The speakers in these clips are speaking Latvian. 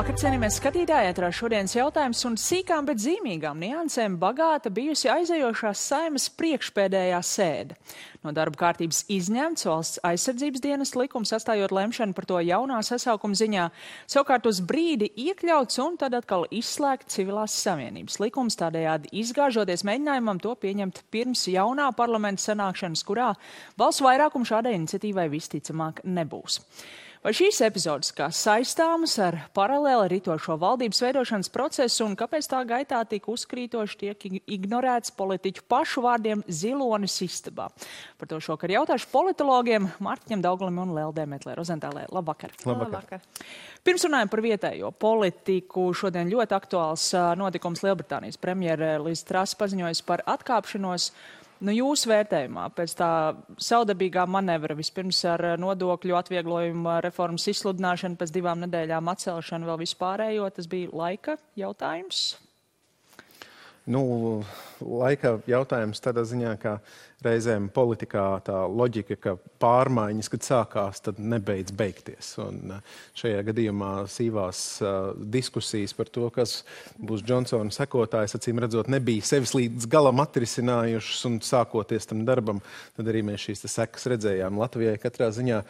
Labvakar, cienījamies skatītāji, ētrā šodienas jautājums un sīkām, bet zīmīgām niansēm bagāta bijusi aizejošās Saeimas priekšpēdējā sēde. No darba kārtības izņemts Valsts aizsardzības dienas likums, atstājot lemšanu par to jaunā sasaukuma ziņā, savukārt uz brīdi iekļauts un tad atkal izslēgt civilās savienības likums, tādējādi izgāžoties mēģinājumam to pieņemt pirms jaunā parlamenta sanākšanas, kurā balsu vairākumu šādai iniciatīvai visticamāk nebūs. Vai šīs epizodes kā saistāmas ar paralēli ritošo valdības veidošanas procesu un kāpēc tā gaitā tik uzkrītoši tiek ignorēts politiķu pašu vārdiem zilonis istabā? Par to šokar jautāšu politologiem Mārtiņam Daugalim un Leldē Metlē Rozentālē. Labvakar. Labvakar. Pirms runājam par vietējo politiku, šodien ļoti aktuāls notikums Lielbritānijas premjere Liz Truss paziņojas par atkāpšanos. Jūsu vērtējumā pēc tā saudabīgā manevra vispirms ar nodokļu atvieglojumu reformas izsludināšanu, pēc 2 nedēļām atcelšanu vēl vispārējo, tas bija laika jautājums? Laika jautājums tādā ziņā, ka reizēm politikā tā loģika, ka pārmaiņas, kad sākās, tad nebeidz beigties. Un šajā gadījumā sīvās diskusijas par to, kas būs Džonsona sekotājs, acīm redzot, nebija sevis līdz galam atrisinājušas un sākoties tam darbam, tad arī mēs šīs sekas redzējām Latvijai katrā ziņā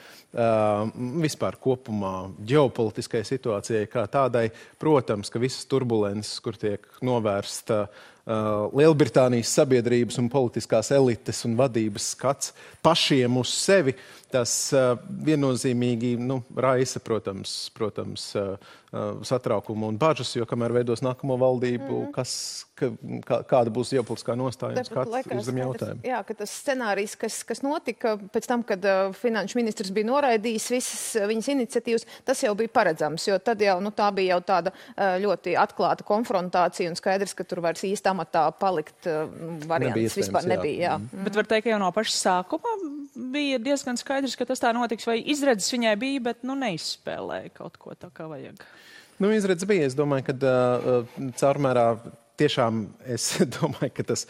vispār kopumā ģeopolitiskai situācijai kā tādai. Protams, ka visas turbulences, kur tiek novērsta Lielbritānijas sabiedrības un politiskās elites un vadības skats pašiem uz sevi, tas viennozīmīgi raisa, protams, satraukumu un bažas, jo kamēr veidos nākamo valdību, kāda būs ģeopolitiskā nostāja un skats uz zem jautājumu. Jā, ka tas scenārijs, kas notika pēc tam, kad finanšu ministrs bija noraidījis visas viņas iniciatīvas, tas jau bija paredzams, jo tad jau tā bija jau tāda ļoti atklāta konfrontācija un skaidrs, ka tur vairs īsti amatā palikt variants vispār nebija. Jā. Bet var teikt, ka jau no paša sākuma bija diezgan skaidrs, ka tas tā notiks, vai izredzes viņai bija, bet neizspēlēja kaut ko tā kā vajag. Izredzes bija. Es domāju, ka caurmērā tiešām es domāju, ka tas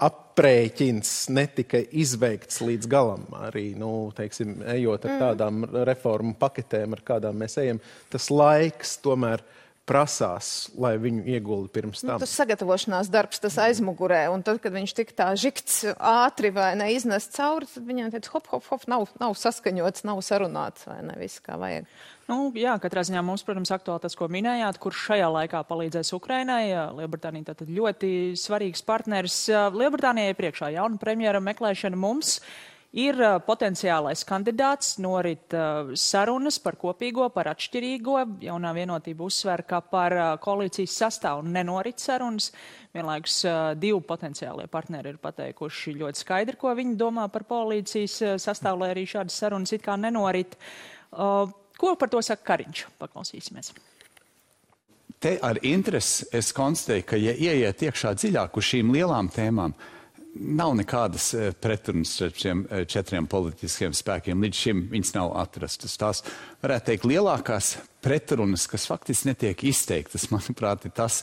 aprēķins netika izveikts līdz galam. Arī, ejot ar tādām reformu paketēm, ar kādām mēs ejam, tas laiks tomēr prasās, lai viņu iegulda pirms tam. Tas sagatavošanās darbs, tas aizmugurē, un tad, kad viņš tik tā žikts ātri vai neiznest cauri, tad viņam teica, hop, nav saskaņots, nav sarunāts, vai ne, viss kā vajag. Jā, katrā ziņā mums, protams, aktuāli tas, ko minējāt, kurš šajā laikā palīdzēs Ukrainai. Lielbritānija tātad ļoti svarīgs partneris. Lielbritānijai priekšā jauna premjera meklēšana mums. Ir potenciālais kandidāts, norit sarunas par kopīgo, par atšķirīgo. Jaunā vienotība uzsver, ka par koalīcijas sastāvu nenorit sarunas. Vienlaikus 2 potenciālie partneri ir pateikuši ļoti skaidri, ko viņi domā par koalīcijas sastāvu, lai arī šādas sarunas it kā nenorit. Ko par to saka Kariņš? Paklausīsimies. Te ar interesi es konstatēju, ka, ja ieiet iekšā dziļāk uz šīm lielām tēmām, nav nekādas pretrunas starp šiem 4 politiskiem spēkiem. Līdz šim viņas nav atrastas. Tās, varētu teikt, lielākās pretrunas, kas faktiski netiek izteiktas, manuprāt, ir tas,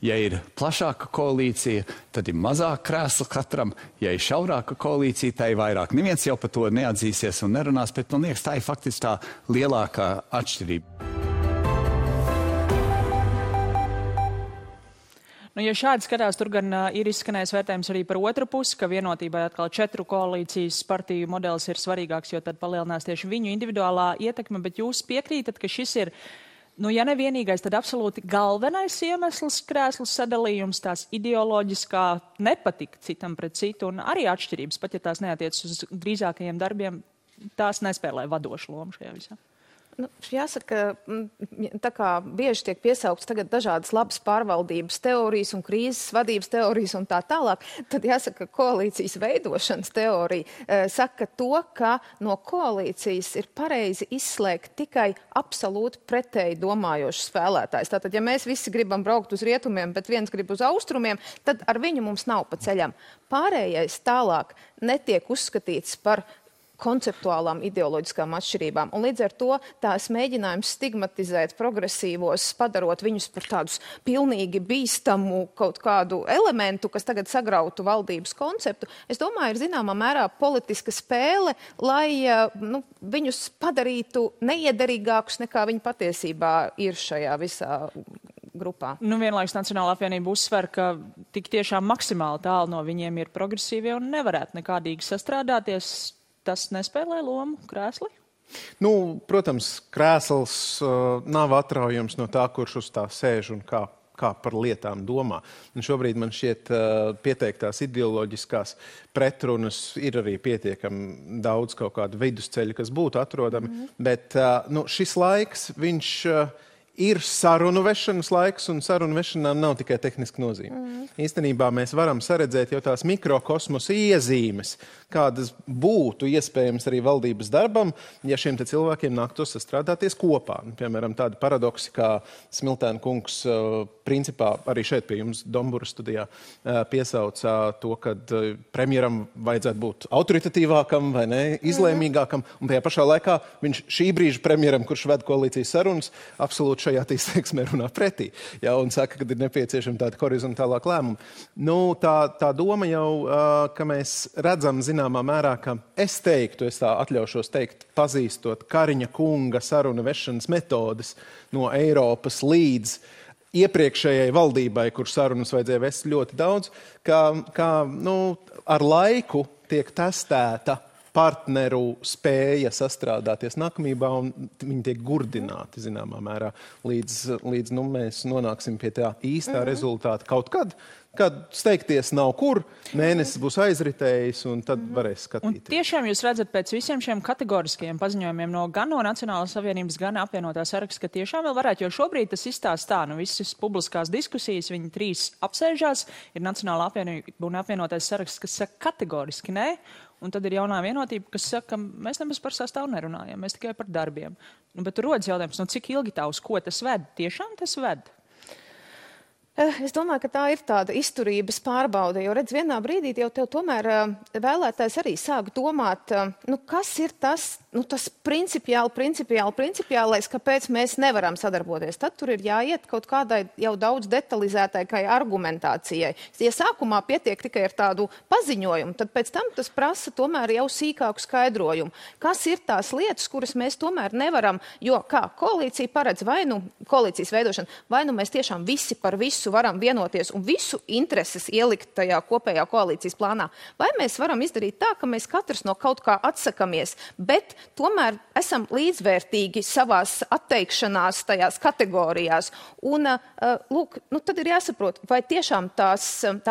ja ir plašāka koalīcija, tad ir mazāk krēsla katram. Ja ir šaurāka koalīcija, tā ir vairāk. Neviens jau par to neatzīsies un nerunās, bet man liekas, tā ir faktiski tā lielākā atšķirība. Ja šādi skatās, tur gan ir izskanējis vērtējums arī par otru pusi, ka vienotībai atkal 4 koalīcijas partiju modelis ir svarīgāks, jo tad palielinās tieši viņu individuālā ietekme, bet jūs piekrītat, ka šis ir, ja ne vienīgais, tad absolūti galvenais iemesls krēslu sadalījums, tās ideoloģiskā nepatika citam pret citu un arī atšķirības, pat ja tās neatiec uz drīzākajiem darbiem, tās nespēlē vadošu lomu šajā visā. Jāsaka, tā kā bieži tiek piesaukts tagad dažādas labas pārvaldības teorijas un krīzes vadības teorijas un tā tālāk, tad jāsaka, koalīcijas veidošanas teorija saka to, ka no koalīcijas ir pareizi izslēgt tikai absolūti pretēji domājošs spēlētājs. Tātad, ja mēs visi gribam braukt uz rietumiem, bet viens grib uz austrumiem, tad ar viņu mums nav pa ceļam. Pārējais tālāk netiek uzskatīts par konceptuālām ideoloģiskām atšķirībām. Un līdz ar to tās mēģinājums stigmatizēt progresīvos, padarot viņus par tādus pilnīgi bīstamu kaut kādu elementu, kas tagad sagrautu valdības konceptu, es domāju, ir zināmā mērā politiska spēle, lai viņus padarītu neiederīgākus nekā viņi patiesībā ir šajā visā grupā. Vienlaikus Nacionālā apvienība uzsver, ka tik tiešām maksimāli tālu no viņiem ir progresīvie un nevarētu nekādīgi sastrādāties. Tas nespēlē lomu krēsli? Protams, krēsls nav atraujams no tā, kurš uz tā sēž un kā par lietām domā. Un šobrīd man šķiet pieteiktās ideoloģiskās pretrunas ir arī pietiekami daudz kaut kādu vidusceļu, kas būtu atrodami, bet šis laiks, viņš ir sarunu vešanas laiks, un sarunu vešanām nav tikai tehniska nozīme. Īstenībā mēs varam saredzēt jau tās mikrokosmosa iezīmes, kādas būtu iespējams arī valdības darbam, ja šiem te cilvēkiem nāktos sastrādāties kopā. Piemēram, tādi paradoksi, kā Smiltēna kungs principā arī šeit pie jums Dombura studijā piesauca to, ka premjeram vajadzētu būt autoritatīvākam vai ne, izlēmīgākam, un tajā pašā laikā viņš šī brīža premjeram, kurš ved koalīcijas sarunas, absolūti šajā izteiksmē runā pretī, un saka, ka ir nepieciešama tāda horizontālāka lēmuma. Tā doma jau, ka mēs redzam zināmā mērā, ka es tā atļaušos teikt, pazīstot Kariņa kunga saruna vešanas metodes no Eiropas līdz iepriekšējai valdībai, kur sarunas vajadzēja vest ļoti daudz, ka ar laiku tiek testēta partneru spēja sastrādāties nākamībā, un viņi tiek gurdināti, zināmā mērā, līdz mēs nonāksim pie tā īstā rezultāta kaut kad steigties nav kur, mēnesis būs aizritējis, un tad varēs skatīties. Un tiešām jūs redzat pēc visiem šiem kategoriskajiem paziņojumiem gan no Nacionālās apvienības, gan apvienotā saraksta, ka tiešām vēl varētu, jo šobrīd tas izstāst tā, visas publiskās diskusijas, viņi 3 apsēžās, ir Nacionālā apvienība un apvienotais saraksts, kas saka kategoriski nē, un tad ir jaunā vienotība, kas saka, ka mēs nemaz par sastāvu nerunājam, mēs tikai par darbiem. Bet tur rodas jautājums, cik ilgi tā uz ko tas ved? Tiešām tas ved? Es domāju, ka tā ir tāda izturības pārbaude, jo redz, vienā brīdī jau tev tomēr vēlētājs arī sāk domāt, kas ir tas principiālais, kāpēc mēs nevaram sadarboties. Tad tur ir jāiet kaut kādai jau daudz detalizētākai argumentācijai. Ja sākumā pietiek tikai ar tādu paziņojumu, tad pēc tam tas prasa tomēr jau sīkāku skaidrojumu. Kas ir tās lietas, kuras mēs tomēr nevaram, jo kā koalīcija paredz koalīcijas veidošana, vai mēs tiešām visi par visu varam vienoties un visu intereses ielikt tajā kopējā koalīcijas plānā. Vai mēs varam izdarīt tā, ka mēs katrs no kaut kā atsakamies, bet tomēr esam līdzvērtīgi savās atteikšanās tajās kategorijās. Un, tad ir jāsaprot, vai tiešām tā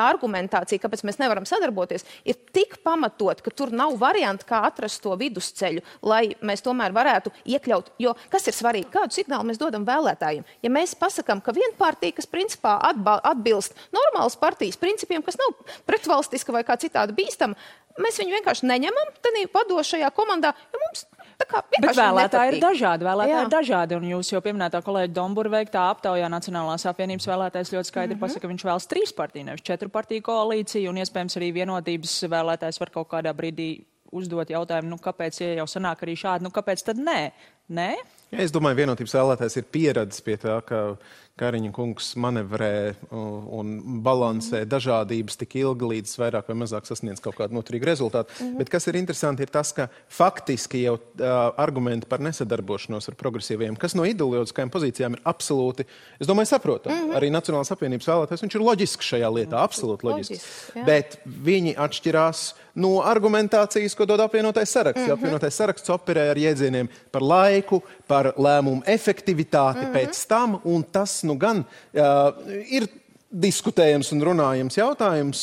argumentācija, kāpēc mēs nevaram sadarboties, ir tik pamatot, ka tur nav varianti, kā atrast to vidusceļu, lai mēs tomēr varētu iekļaut. Jo kas ir svarīgi? Kādu signālu mēs dodam vēlētājiem? Ja mēs pasakām, ka viena partija, kas principā atbilst normālas partijas principiem, kas nav pretvalstiska vai kā citādi bīstama, mēs viņu vienkārši neņemam tādā vadošajā komandā, jo mums Bet vēlētāji ir dažādi, un jūs jau pieminētā kolēģa Dombura veiktā aptaujā Nacionālās apvienības vēlētājs ļoti skaidri pasaka, ka viņš vēlas 3 partiju, nevis 4 partiju koalīciju, un iespējams arī vienotības vēlētājs var kaut kādā brīdī uzdot jautājumu, kāpēc, ja jau sanāk arī šādi, kāpēc tad nē? Nē? Ja, es domāju, vienotības vēlētājs ir pieredzis pie tā, ka Kariņa kungs manevrē un balansē dažādības tik ilgi, līdz vairāk vai mazāk sasniedz kaut kādu noturīgu rezultātu. Bet kas ir interesanti, ir tas, ka faktiski jau argumenti par nesadarbošanos ar progresīviem, kas no ideoloģiskajām pozīcijām ir absolūti, es domāju, saprotam. Arī Nacionālās apvienības vēlētājs, viņš ir loģisks šajā lietā, absolūti loģisks. Bet viņi atšķirās no argumentācijas, ko dod apvienotais saraksts. Apvienotais saraksts operē ar jēdzieniem par laiku, par lēmumu efektivitāti pēc tam, un tas gan ir diskutējams un runājams jautājums,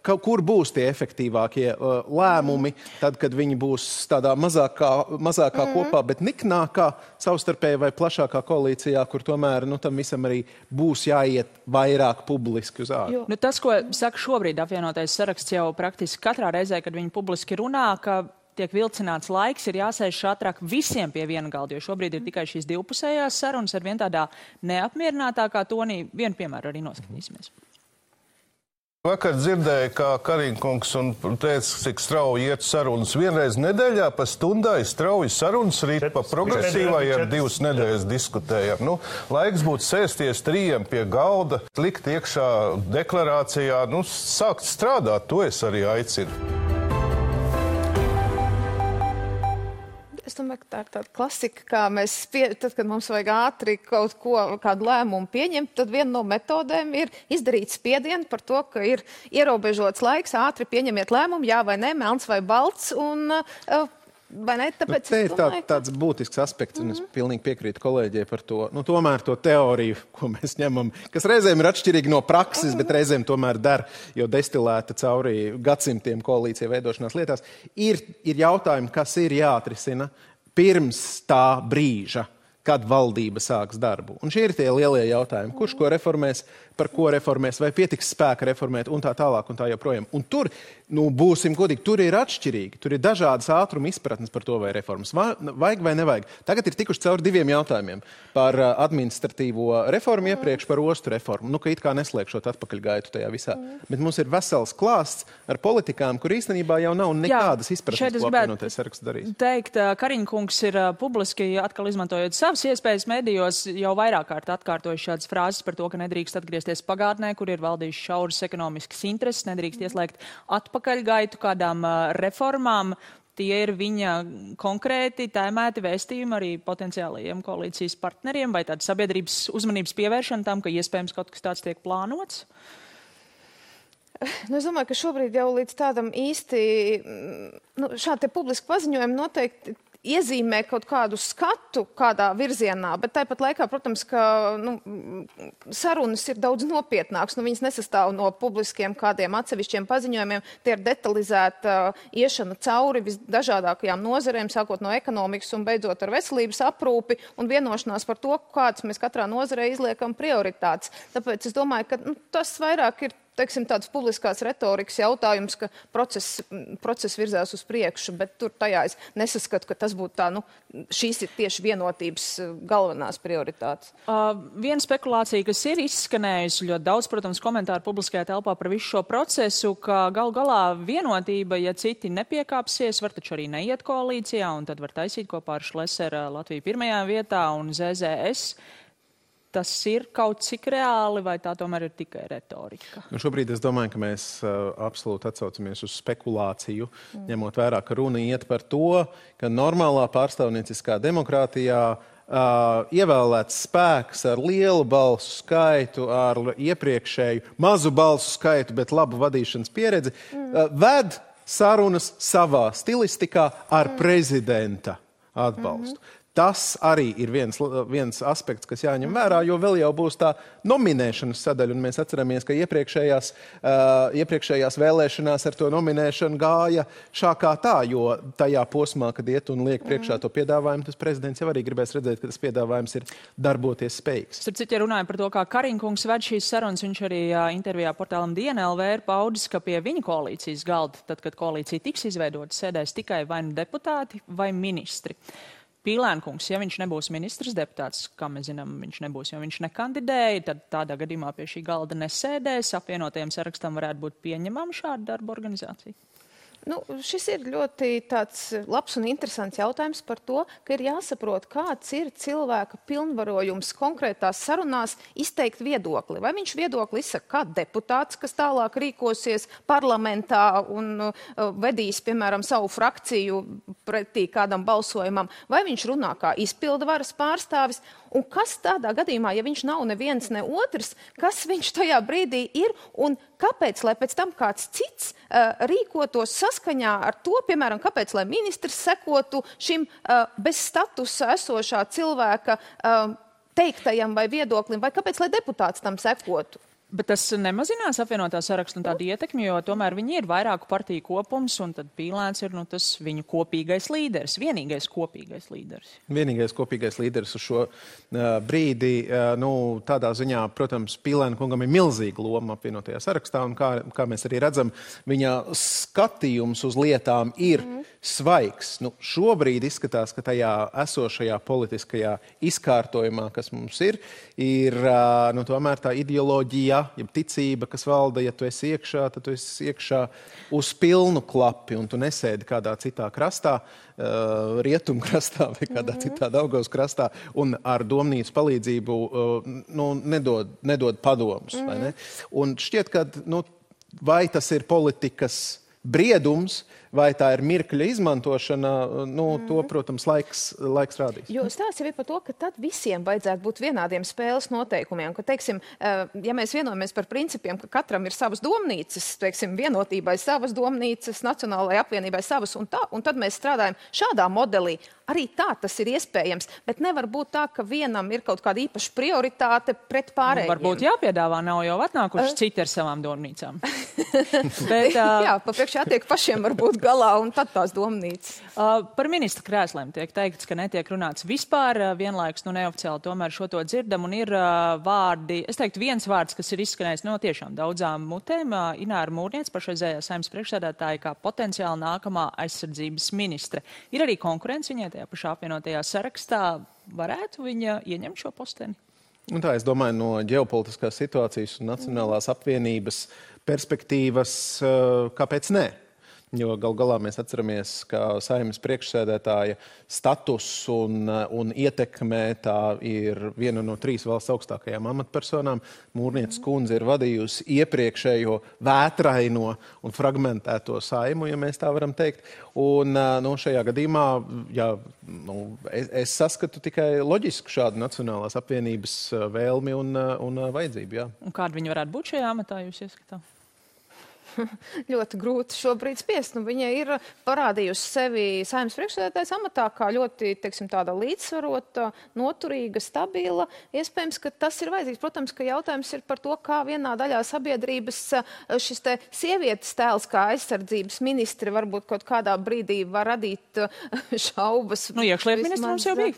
kur būs tie efektīvākie lēmumi, tad, kad viņi būs tādā mazākā kopā, bet niknākā, savstarpēji vai plašākā koalīcijā, kur tomēr tam visam arī būs jāiet vairāk publiski uz ārā. Tas, ko saka šobrīd apvienotais saraksts jau praktiski katrā reizē, kad viņi publiski runā, ka tiek vilcināts laiks, ir jāsēž ātrāk visiem pie viena galda, jo šobrīd ir tikai šīs divpusējās sarunas ar vien tādā neapmierinātākā tonī. Vienu piemēru arī noskatīsimies. Vakar dzirdēju, kā Kariņkungs un teica, cik strauji iet sarunas. Vienreiz nedēļā pa stundai strauji sarunas rīt pa progresīvai ar 2 nedēļas diskutējam. Nu, laiks būtu sēsties 3 pie galda, likt iekšā deklarācijā, sākt strādāt, to es arī aicinu. Es domāju, ka tā ir tāda klasika, kā tad, kad mums vajag ātri kādu lēmumu pieņemt, tad viena no metodēm ir izdarīt spiedienu par to, ka ir ierobežots laiks, ātri pieņemiet lēmumu, jā vai nē, melns vai balts, un vai ne? Tāpēc te ir tāds būtisks aspekts, un es pilnīgi piekrītu kolēģiem par to. Tomēr to teoriju, ko mēs ņemam, kas reizēm ir atšķirīgi no prakses, bet reizēm tomēr der, jo destilēta cauri gadsimtiem koalīcija veidošanās lietās, ir jautājumi, kas ir jāatrisina pirms tā brīža, kad valdība sāks darbu. Un šie ir tie lielie jautājumi. Kurš ko reformēs, par ko reformēs, vai pietiks spēka reformēt, un tā tālāk, un tā joprojām. Un tur, būsim godīgi, tur ir atšķirīgi. Tur ir dažādas ātruma izpratnes par to, vai reformas vajag vai nevajag. Tagad ir tikuši cauri 2 jautājumiem. Par administratīvo reformu iepriekš, par ostu reformu. Ka it kā neslēgšot atpakaļgaitu tajā visā. Bet mums ir vesels klāsts ar politikām, kur īstenībā jau nav nekādas izpratnes, ko apvienotais saraksts darīs. Teikt, Kariņkungs ir publiski atkal izmantojot savas iespējas medijos jau vairāk kārt atkārtojuši šādas frāzes par to, ka nedrīkst atgriezties pagātnē, kur ir valdījuši šauras ekonomiskas intereses, nedrīkst ieslēgt atpakaļgaitu kādām reformām. Tie ir viņa konkrēti tēmēti vēstījumi arī potenciālajiem koalīcijas partneriem, vai tāda sabiedrības uzmanības pievēršana tam, ka iespējams kaut kas tāds tiek plānots? Es domāju, ka šobrīd jau līdz tādam īsti šādi publiski paziņojumi noteikti iezīmē kaut kādu skatu kādā virzienā, bet tāpat laikā, protams, ka sarunas ir daudz nopietnākas. Viņas nesastāv no publiskiem kādiem atsevišķiem paziņojumiem. Tie ir detalizēta iešana cauri visdažādākajām nozarēm, sākot no ekonomikas un beidzot ar veselības aprūpi un vienošanās par to, kādas mēs katrā nozarē izliekam prioritātes. Tāpēc es domāju, ka tas vairāk ir tāds publiskās retorikas jautājums, ka process virzās uz priekšu, bet tur tajā es nesaskatu, ka tas būtu tā, šīs ir tieši vienotības galvenās prioritātes. Viena spekulācija, kas ir izskanējusi ļoti daudz, protams, komentāru publiskajā telpā par visu šo procesu, ka gal galā vienotība, ja citi nepiekāpsies, var taču arī neiet koalīcijā, un tad var taisīt kopā ar Šleseru Latviju 1. vietā un ZZS. Tas ir kaut cik reāli, vai tā tomēr ir tikai retorika? Šobrīd es domāju, ka mēs absolūti atsaucamies uz spekulāciju, ņemot vērā, ka runa iet par to, ka normālā pārstāvnieciskā demokrātijā ievēlēts spēks ar lielu balsu skaitu, ar iepriekšēju mazu balsu skaitu, bet labu vadīšanas pieredzi, ved sarunas savā stilistikā ar prezidenta atbalstu. Tas arī ir viens aspekts, kas jāņem vērā, jo vēl jau būs tā nominēšanas sadaļa, un mēs atceramies, ka iepriekšējās vēlēšanās ar to nominēšanu gāja šā kā tā, jo tajā posmā, kad iet un liek priekšā to piedāvājumu, tas prezidents jau arī gribēs redzēt, ka tas piedāvājums ir darboties spējīgs. Starp citu, ja runājam par to, kā Kariņkungs ved šīs sarunas, viņš arī intervijā portālam DNLV ir paudis, ka pie viņa koalīcijas galda, tad, kad koalīcija tiks izveidota, sēdēs tikai vai nu deputāti vai ministri. Pīlēnkungs, ja viņš nebūs ministrs deputāts, kā mēs zinām, viņš nebūs, jo viņš nekandidēja, tad tādā gadījumā pie šī galda nesēdēs. Apvienotajam sarakstam varētu būt pieņemama šāda darba organizācija. Šis ir ļoti tāds labs un interesants jautājums par to, ka ir jāsaprot, kāds ir cilvēka pilnvarojums konkrētās sarunās izteikt viedokli. Vai viņš viedokli izsaka kā deputāts, kas tālāk rīkosies parlamentā un vedīs, piemēram, savu frakciju pretī kādam balsojumam, vai viņš runā kā izpildvaras pārstāvis, un kas tādā gadījumā, ja viņš nav neviens ne otrs, kas viņš tajā brīdī ir un kāpēc, lai pēc tam kāds cits rīkotos saskaņā ar to, piemēram, kāpēc, lai ministrs sekotu šim bez statusa esošā cilvēka teiktajam vai viedoklim, vai kāpēc, lai deputāts tam sekotu? Bet tas nemazinās apvienotā sarakstu un tādu ietekmi, jo tomēr viņi ir vairāku partiju kopums, un tad Pīlēns ir tas viņu kopīgais līderis, vienīgais kopīgais līderis. Vienīgais kopīgais līderis uz šo brīdi, tādā ziņā, protams, Pīlēna kungam ir milzīga loma apvienotajā sarakstā, un kā mēs arī redzam, viņa skatījums uz lietām ir svaigs. Nu, šobrīd izskatās, ka tajā esošajā politiskajā izkārtojumā, kas mums ir tomēr tā ideoloģija, ja ticība, kas valda, ja tu esi iekšā, tad tu esi iekšā uz pilnu klapi un tu nesēdi kādā citā krastā, rietumkrastā vai kādā citā Daugavas krastā un ar domnīcu palīdzību nedod padomus. Vai ne? Un šķiet, ka vai tas ir politikas briedums, vai tā ir mirkļa izmantošana, to, protams, laiks rādīs. Jo stāsts jau ir par to, ka tad visiem vajadzētu būt vienādiem spēles noteikumiem, ka, teiksim, ja mēs vienojamies par principiem, ka katram ir savas domnīcas, teiksim, vienotībai savas domnīcas, Nacionālajai apvienībai savas un tad mēs strādājam šādā modelī. Arī tā tas ir iespējams, bet nevar būt tā, ka vienam ir kaut kāda īpaša prioritāte pret pārējiem. Varbūt jāpiedāvā, nav jau atnākuši citi ar savām domnīcām. Bet, jā, papriekš jātiek pašiem varbūt galā un tad tās domnīcas. Par ministra krēsliem tiek teikts, ka netiek runāts vispār, vienlaikus neoficiāli tomēr šo to dzirdam un ir vārdi, es teiktu viens vārds, kas ir izskanējis no tiešām daudzām mutēm, Ināra Mūrniece, pašreizējā Saeimas priekšsēdētāja, kā potenciāli nākamā aizsardzības ministre. Ir arī konkurence viņai tajā pašā apvienotajā sarakstā. Varētu viņa ieņemt šo posteni? Un tā, es domāju, no ģeopolitiskās situācijas un Nacionālās apvienības perspektīvas, kāpēc nē? Jo gal galā mēs atceramies, ka Saeimas priekšsēdētāja status un ietekmē tā ir viena no 3 valsts augstākajām amatpersonām. Mūrnieces kundze ir vadījusi iepriekšējo vētraino un fragmentēto Saimu, ja mēs tā varam teikt. Un šajā gadījumā es saskatu tikai loģisku šādu Nacionālās apvienības vēlmi un vajadzību. Jā. Un kāda viņa varētu būt šajā amatā, jūs ieskatāt? Ļoti grūti šobrīd spiest. Viņa ir parādījusi sevi Saeimas priekšsēdētājas amatā kā ļoti, teiksim, tāda līdzsvarota, noturīga, stabila. Iespējams, ka tas ir vajadzīgs. Protams, ka jautājums ir par to, kā vienā daļā sabiedrības šis te sievietes tēls kā aizsardzības ministri varbūt kaut kādā brīdī var radīt šaubas. Iekšlietu ministrs jau bija.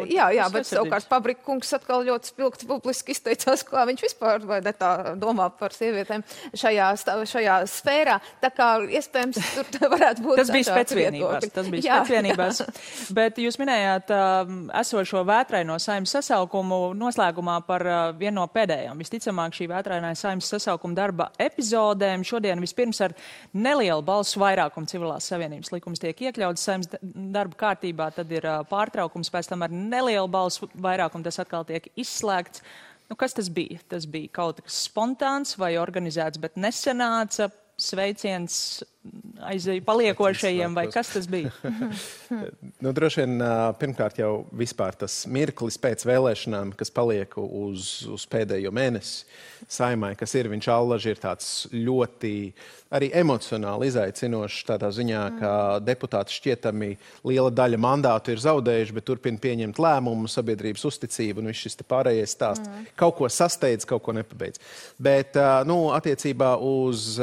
Jā, bet savukārt Pabrika kungs atkal ļoti spilgti publiski izteicās, kā viņš vispār vai ne tā domā par sievietēm šajā sfērā, tā kā iespējams tur varētu būt tas bija spēcvienībās. Bet jūs minējāt esošo vētraino Saeimas sasaukumu noslēgumā par vienu no pēdējām. Visticamāk šī vētrainā Saeimas sasaukuma darba epizodēm šodien vispirms ar nelielu balsu vairākumu civilās savienības likums tiek iekļauts Saeimas darba kārtībā, tad ir pārtraukums, pēc tam ar nelielu balsu vairākumu tas atkal tiek izslēgts. Kas tas bija? Tas bija kaut kas spontāns vai organizēts, bet nesanāca, sveiciens paliekošajiem, vai kas tas bija? Droši vien pirmkārt jau vispār tas mirklis pēc vēlēšanām, kas paliek uz pēdējo mēnesi Saeimai, kas ir, viņš allaži ir tāds ļoti arī emocionāli izaicinošs tādā ziņā, ka deputāti šķietami liela daļa mandātu ir zaudējuši, bet turpina pieņemt lēmumu, sabiedrības uzticību, un viss šis te pārējais stāsts. Kaut ko sasteidz, kaut ko nepabeidz. Bet, attiecībā uz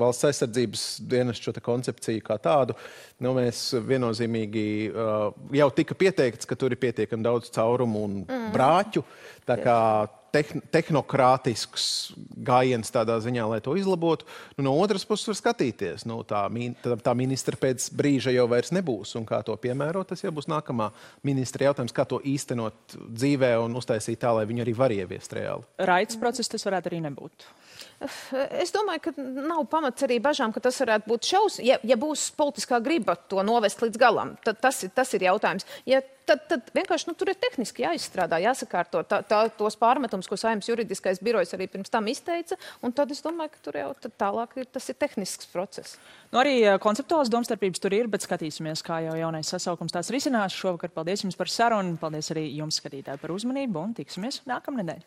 valsts aizsardzības dienestu šo koncepciju kā tādu, mēs viennozīmīgi jau tika pieteikts, ka tur ir pietiekami daudz caurumu un brāķu, tā kā tehnokrātisks gājiens tādā ziņā, lai to izlabotu. No otras puses var skatīties. Tā ministra pēc brīža jau vairs nebūs, un kā to piemērot, tas jau būs nākamā ministra jautājums, kā to īstenot dzīvē un uztaisīt tā, lai viņi arī var ieviest reāli. Raitas process tas varētu arī nebūt. Es domāju, ka nav pamats arī bažām, ka tas varētu būt ja būs politiskā griba to novest līdz galam, tad tas ir jautājums. Tad vienkārši tur ir tehniski jāizstrādā, jāsakārto tos pārmetums, ko Saeimas juridiskais birojs arī pirms tam izteica, un tad es domāju, ka tur jau tālāk tas ir tehnisks process. Arī konceptuāls domstarpības tur ir, bet skatīsimies, kā jau jaunais sasaukums tās risinās. Šovakar paldies jums par sarunu, paldies arī jums, skatītāji, par uzmanību, un tiksimies nākamnedēļ.